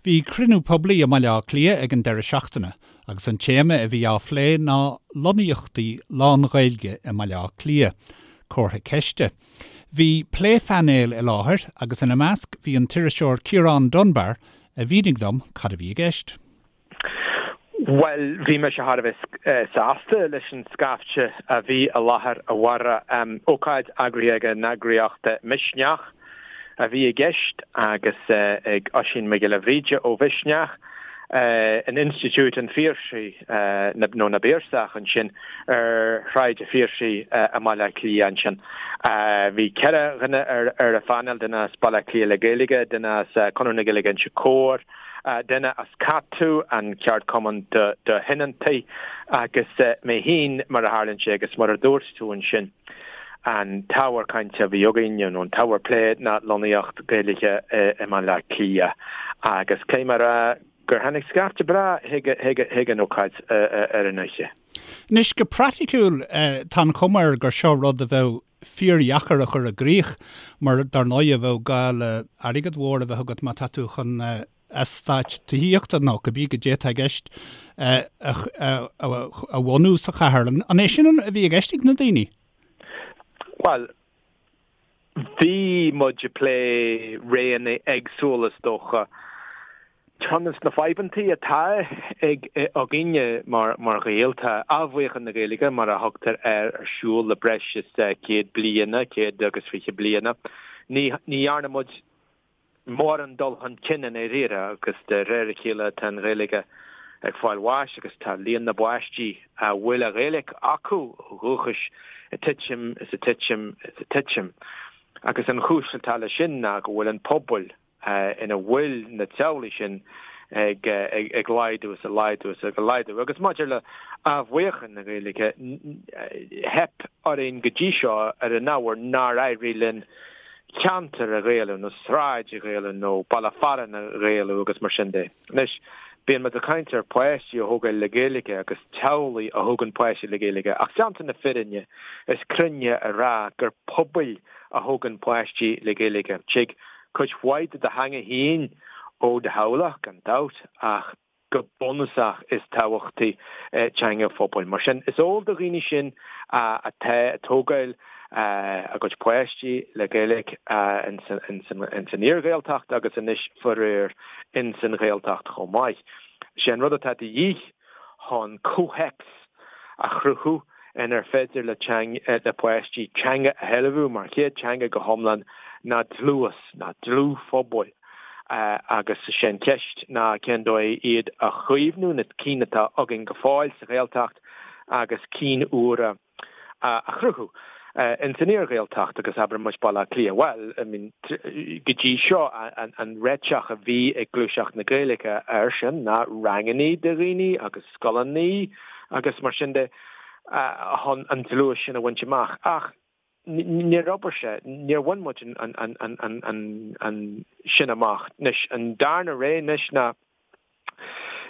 Bhí cruinniú poiblí i mBaile Átha Cliath ag an deireadh seachtaine agus an téama a bhí á phlé ná lonnaíochtaí lán-Ghaeilge i mBaile Átha Cliath, comhartha ceiste. Bhí pléphainéal i láthair agus ina measc bhí an t-iriseoir Ciarán Dunbar a mhínigh dom cad a bhí i gceist. Bhuel, bhí mise thar a bheith sásta leis an scaifte a bhí i láthair, a Mháire. Ócáid eagraithe ag an eagraíocht Misneach a bhí i gceist agus ag Oisín Mac Giolla Bhríde ó Mhisneach in Institiúid an Phiarsaigh, nó na bPiarsach ansin ar Shráid an Phiarsaigh i mBaile Átha Cliath ansin. Bhí 4 dhuine ar an phainéal, duine as Baile Átha Cliath le Gaeilge, duine as Conradh na Gaeilge Inse Chór, duine as CATU, an ceardchumann do thionóntaí, agus mé féin, mar a tharlaíonn sé, agus mar a dúirt tú ansin, an t-ábhar cainte a bhí againn, nó an t-ábhar plé, ná lonnaíocht Gaeilge i mBaile Átha Cliath. Agus caithfidh mé a rá gur tháinig scaifte breá chuig an ócáid ar an oíche. Anois, go praiticiúil, tá an chuma air gur seo rud a bheadh fíordheacair a chur i gcrích mar dar ndóigh bheadh gá le airgead mhór a bheith agat má tá tú chun eastáit tithíochta nó cibé goidé atá i gceist a bhunú sa chathair. An é sin a bhí i gceist ag na daoine? Bhuel, bhí muid ag plé roghanna éagsúla is dócha. Ceann de na fadhbantaí atá ag againne mar Ghaeil, tá athbheochan na Gaeilge, mar a thugtar air, ar siúl le breis is 100 bliana, 120 bliana. Ní dhearna muid mórán dul chun cinn i ndáiríre agus de réir a chéile tá an Ghaeilge ag fáil bháis agus tá líon na bpáistí a bhfuil an Ghaeilge acu ó dhúchas ag titim is ag titim is ag titim. Agus an chúis atá leis sin ná go bhfuil an pobal ina bhfuil na teaghlaigh sin ag laghdú is ag laghdú is ag laghdú. Agus maidir le athbheochan na Gaeilge, theip orainn go dtí seo ar an ábhar nár éirigh linn ceantar a Ghaelú nó sráid a Ghaelú nó baile fearainn a Ghaelú agus mar sin de. Anois, bíonn muid ag caint ar pháistí a thógáil le Gaeilge agus teaghlaigh a thógann páistí le Gaeilge ach déanta na fírinne, is cruinne a rá gur pobail a thógann páistí le Gaeilge. Tig cuid mhaith de do theanga féin ó do theaghlach, gan dabht, ach go bunúsach is tábhachtaí teanga phobail. Mar sin, is eol do dhaoine sin atá ag tógáil a gcuid páistí le Gaeilge ins an iar-Ghaeltacht agus anois faraor ins an Ghaeltacht chomh maith. Sé an rud atá de dhíth chun comhthéacs a chruthú inar féidir le le páistí teanga a shealbhú mar chéad teanga go hiomlán ná dlús, ná dlúthphobal agus is é an cheist ná cén dóigh iad a chaomhnú, na cinn atá againn go fóill sa Ghaeltacht agus cinn úra a chruthú ins an iar-Ghaeltacht agus abair muid Baile Átha Cliath. Bhuel, I mean, go dtí seo an réiteach a bhí ag Gluaiseacht na Gaeilge air sin ná rangannaí do dhaoine agus scoileannaí agus mar sin de chun an dlús sin a bhaint amach. Ach níor obair sé, níor bhain muid an sin amach. Anois, an darna rogha anois ná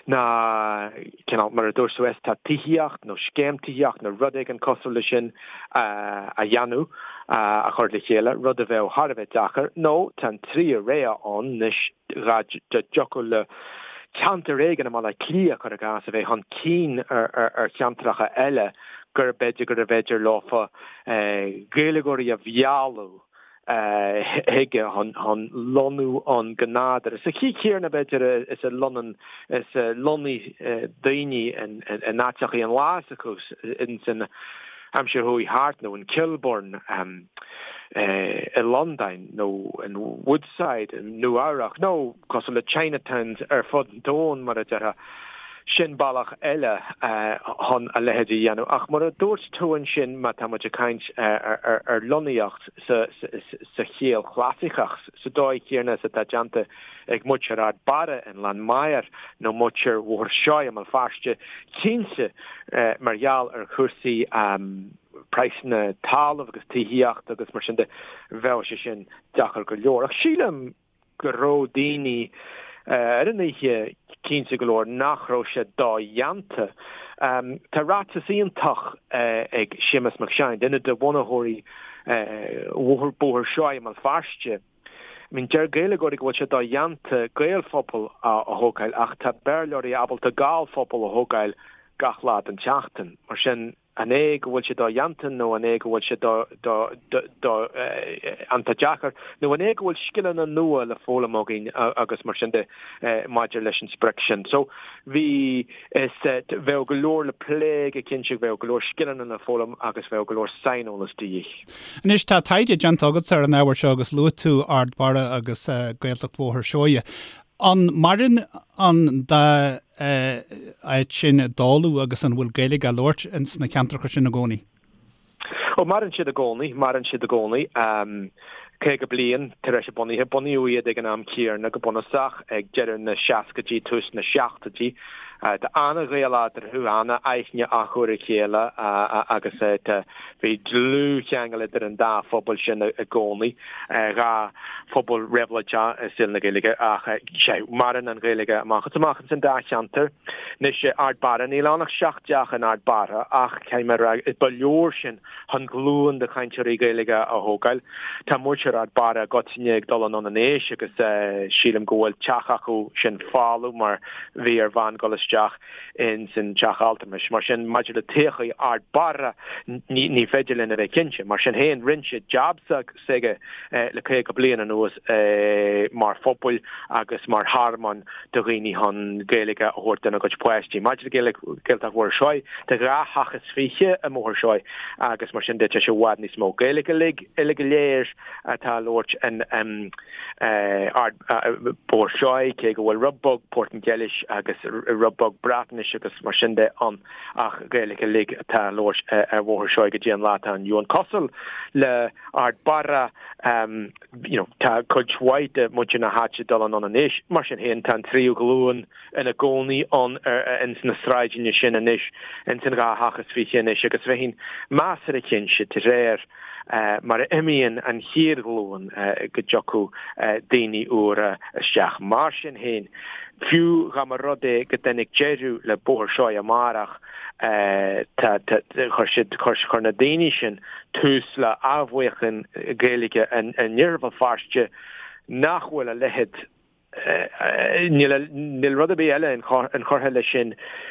ná cineál, mar a dúirt tú, eastát tithíocht nó scéim tithíocht nó rud éigin cosúil leis sin a dhéanamh, a chur le chéile, rud a bheadh thar a bheith deacair, nó tá an tríú rogha ann anois, dá dtiocfadh le ceantar éigin i mBaile Átha Cliath, cuir i gcás, a bheith chun cinn ar cheantracha eile, gur b'fhéidir gurbh fhéidir leofa Gaeilgeoirí a mhealladh chuige chun lonnú ann go nádúrtha. Sa chaoi chéanna, b'fhéidir, is a lonnaíonn, is a lonnaigh daoine in áiteachaí an lá s'acu ins an aimsir chuaigh thart, nó in Kilburn i Londain, nó in Woodside i Nua Eabhrac, nó cosúil le Chinatowns ar fud an domhain, mar a déarfá. Sin bealach eile chun a leithéid a dhéanamh. Ach mar a dúirt tú ansin, má tá muid ag caint ar lonnaíocht sa chiall chlasaiceach, sa dóigh chéanna is atá déanta ag muintir Ard Barra i nGleann Maghair nó muintir Bhóthar Seoighe i mBéal Feirste, cinnte mar gheall ar chúrsaí praghsanna talaimh agus tithíochta agus mar sin de, bheadh sé sin deacair go leor. Ach sílim go raibh daoine ar an oíche cinnte go leor nach raibh sé dodhéanta. Tá ráiteas iontach ag Séamus Mac Seáin, duine de bhunaitheoirí Bhóthar Seoighe i mBéal Feirste. I mean, deir Gaeilgeoirí go bhfuil sé dodhéanta Gaelphobal a thógáil ach tá Béarlóirí ábalta Gallphobal a thógáil gach lá den tseachtain. Mar sin, an é go bhfuil sé dodhéanta nó an é go bhfuil sé do, do, do, do, iontach deacair nó an é go bhfuil scileanna nua le foghlaim againn agus mar sin de maidir leis an sprioc sin. So, bhí, is, bheadh go leor le plé go cinnte, bheadh go leor scileanna le foghlaim agus bheadh go leor saineolas de dhíth. Anois, tá taighde déanta agatsa ar an ábhar seo agus luaigh tú Ard Barra agus Gaeltacht Bhóthar Seoighe. An maireann an dá áit sin i dtólamh agus an bhfuil Gaeilge á labhairt ins na ceantracha sin i gcónaí? Ó, maireann siad i gcónaí, maireann siad i gcónaí. 50 bliain tar éis a bunaithe, bunaíodh iad ag an am céanna go bunúsach, ag deireadh na seascaidí, tús na seachtóidí. Tá an-ghaol eatarthu, an-aithne acu ar a chéile agus tá, bhí dlúthcheangal idir an dá phobal sin i gcónaí, dhá phobal réabhlóideach i saol na Gaeilge ach sea, maireann an Ghaeilge amach is amach ins an dá cheantar. Anois, Ard Barra, níl ann ach seacht dteach in Ard Barra ach caithfidh mé a rá, ba leor sin chun glúin de chainteoirí Gaeilge a thógáil. Tá muintir Ard Barra i gcoitinne ag dul anonn in aois agus sílim go bhfuil teach acu sin folamh mar bhí ar bhean dul isteach ins an teach altramais. Mar sin, maidir le todhchaí Ard Barra, ní féidir linn a bheith cinnte. Mar sin féin, rinne siad jab s'aige le 50 bliain anuas mar phobal agus mar thearmann do dhaoine chun Gaeilge a thabhairt dona gcuid páistí. Maidir le Gaeltacht Bhóthar Seoighe, tá dhá theach is fiche i mBóthar Seoighe agus mar sin de tá sé i bhfad níos mó. Gaeilge uilig, uilig go léir atá á labhairt in Ard Bóthar Seoighe, cé go bhfuil rud beag Portaingéilis agus rud beag Breatnais agus mar sin de ann ach Gaeilge uilig atá á labhairt ar Bhóthar Seoighe go dtí an lá atá inniu ann. Cosúil le Ard Barra, you know, tá cuid mhaith de mhuintir na háite ag dul anonn in aois. Mar sin féin, tá an tríú glúin ina gcónaí ann ins na sráideanna sin anois, ins an dhá theach is fiche anois agus bheinn measartha cinnte de réir mar a imíonn an chéad ghlúin go dtiocfadh daoine úra isteach. Mar sin féin, fiú dá mba rud é go dtáinig deireadh le Bóthar Seoighe amárach, tá, chuir siad, chuir na daoine sin tús le athbheochan Gaeilge in Iarthar Bhéal Feirste nach bhfuil a leithéid Níl níl rud ar bith eile inchurtha leis sin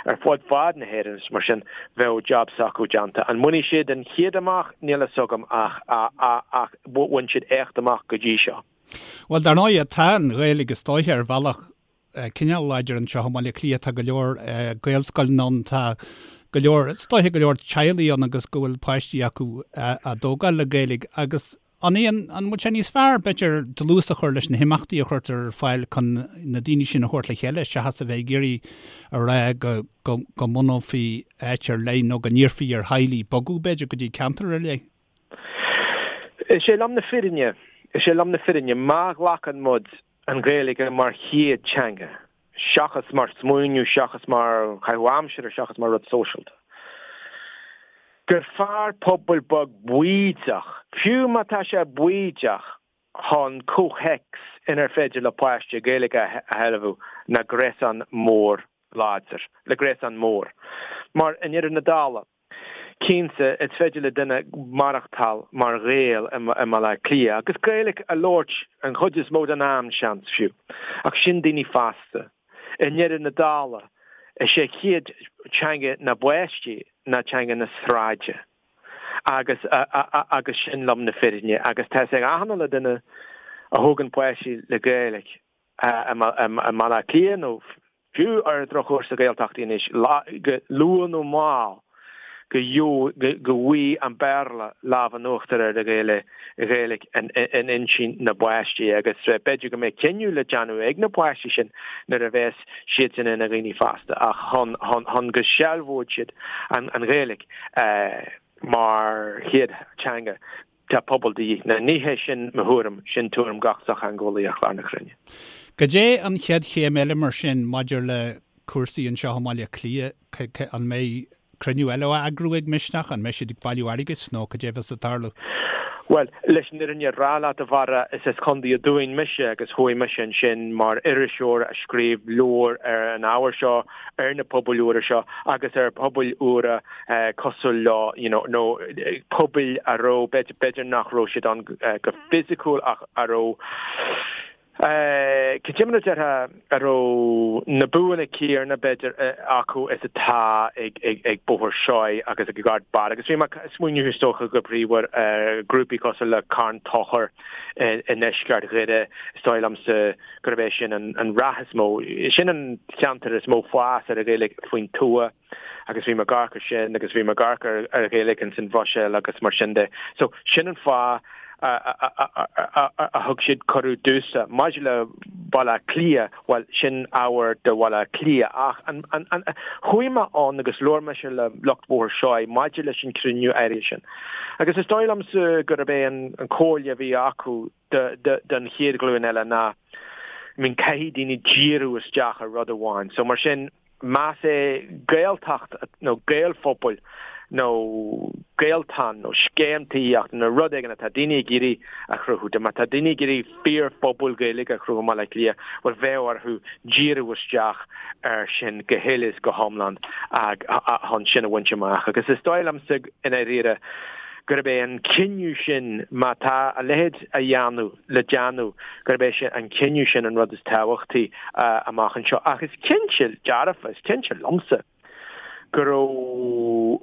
ar fud fad na hÉireann is mar sin bheadh jab s'acu déanta. An mbainfidh siad an chéad amach? Níl a fhios agam ach ach bhain siad éacht amach go dtí seo. Bhuel, dar ndóigh, tá an Ghaeilge is dóiche ar bhealach cineál láidir anseo i mBaile Átha Cliath. Tá go leor Gaelscoileanna ann, tá go leor, is dóiche go leor teaghlaigh ann agus go bhfuil páistí acu á dtógáil le Gaeilge agus An é an an bhfuil sé níos fearr, b'fhéidir, dlús a chur leis na himeachtaí a chuirtear ar fáil chun na daoine sin a thabhairt le chéile seachas a bheith ag iarraidh a rá go go go mbunófaí áit ar leith nó go n-iarrfaí ar theaghlaigh bogadh, b'fhéidir, go dtí ceantar ar leith? Is é lom na fírinne, is é lom na fírinne, má ghlacann muid an Ghaeilge mar chéad teanga, seachas mar smaoineamh, seachas mar chaitheamh aimsire, seachas mar rud sóisialta. Gur fearr pobal beag baoideach, fiú má tá sé baoideach, chun comhthéacs inar féidir le páiste Gaeilge a shealbhú ná gréasán mór láidir, le gréasán mór. Mar i ndeireadh na dála, Cinnte, is féidir le duine maireachtáil mar Ghael i mBaile Átha Cliath, agus Gaeilge a labhairt an chuid is mó den am, seans, fiú. Ach sin daoine fásta. I ndeireadh na dála, is é chéad teanga na bpáistí ná teanga na sráide. Agus, agus sin lom na fírinne. Agus tá 'fhios ag achan uile duine a thógann páistí le Gaeilge, i mBaile Átha Cliath nó fiú ar an drochuair sa Ghaeltacht anois, go luath nó mall go bhfaighidh an Béarla lámh in uachtar ar an Ghaeilge in intinn na bpáistí agus b'fhéidir go mbeidh cinneadh le déanamh ag na páistí sin nuair a bheas siadsan ina ndaoine fásta ach chun go sealbhóidh siad an Ghaeilge mar chéad teanga. Tá pobal de dhíth. Now ní hé sin mo thuairim, sin tuairim gach sochtheangeolaí ar chlár na cruinne. Goidé an chéad chéim eile mar sin maidir le cúrsaí anseo i mBaile Átha Cliath? An mbeidh. cruinniú eile á eagrú ag Misneach? An mbeidh siad ag bailiú airgid nó cad é a bheas ag tarlú? Bhuel, leis an fhírinne a rá leat, a Bharra, is as Contae an Dúin mise agus chuaigh mise ansin mar iriseoir a scríobh leabhar ar an ábhar seo, ar na pobail úra seo agus ar phobail úra cosúil leo, you know, nó pobail a raibh, b'fhéidir nach raibh siad ann go fisiciúil ach a raibh, Cad é mar a déarfá a raibh na buanna céanna, b'fhéidir, acu is atá ag Bóthar Seoighe agus ag Ard Barra. Agus bhí mé ag smaoineamh is dócha go príomha ar ghrúpaí cosúil le Carn Tóchair i ndeisceart Dhoire, is dóigh liomsa gurb é sin an rath is mó, sin an ceantar is mó fás ar an Ghaeilge faoin tuath. Agus bhí mé ag amharc ar sin agus bhí mé ag amharc ar ar Ghaeilge ins an Bhruiséil agus mar sin de. So sin an fáth a thug siad cuireadh domhsa. Maidir le Baile Átha Cliath, bhuel sin ábhar do Bhaile Átha Cliath ach an, an, an, chuaigh mé ann agus labhair mise le lucht Bhóthar Seoighe maidir leis an cruinniú áirithe sin. Agus is dóigh liomsa gurb é an an comhairle a bhí acu don chéad ghlúin eile ná, I mean caithfidh daoine díriú isteach ar rud amháin. So mar sin, más é Gaeltacht nó Gaelphobail nó Gaeltán nó scéim tithíochta nó rud éigin atá daoine ag iarraidh a chruthú, má tá daoine ag iarraidh fíorphobal Gaeilge a chruthú i mBaile Átha Cliath, bhuel bheadh orthu díriú isteach air sin go huile is go hiomlán chun sin a bhaint amach. Agus is dóigh liomsa i ndáiríre gurb é an cinneadh sin, má tá a leithéid a dhéanamh, le déanamh, gurb é sin an cinneadh sin an rud is tábhachtaí amach anseo. Ach is cinnte dearfa, is cinnte liomsa go raibh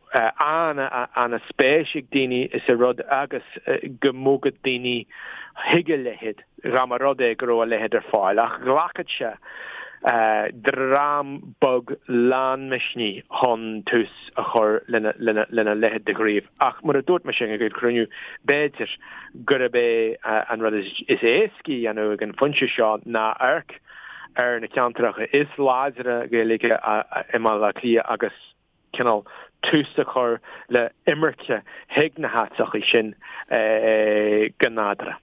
an-spéis ag daoine sa rud agus go mbogfadh daoine chuig a leithéid dá mba rud é go raibh a leithéid ar fáil. Ach ghlacfadh sé dream beag lán misnigh chun tús a chur lena leithéid de ghníomh. Ach mar a dúirt mise ag an gcruinniú, b'fhéidir gurb é an rud is éascaí a dhéanamh ag an phointe seo ná amharc ar na ceantracha is láidre Gaeilge i mBaile Átha Cliath agus cineál tús a chur le imirce chuig na háiteacha sin go nádúrtha.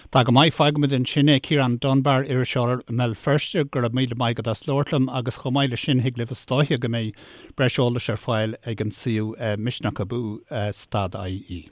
Tá go maith, fágfaimid ansin é. Ciarán Dunbar, iriseoir i mBéal Feirste, go raibh míle maith agat as labhairt liom agus chomh maith leis sin thig libh is dóiche go mbeidh breis eolais ar fáil ag an suíomh Misneach Abú stad IE.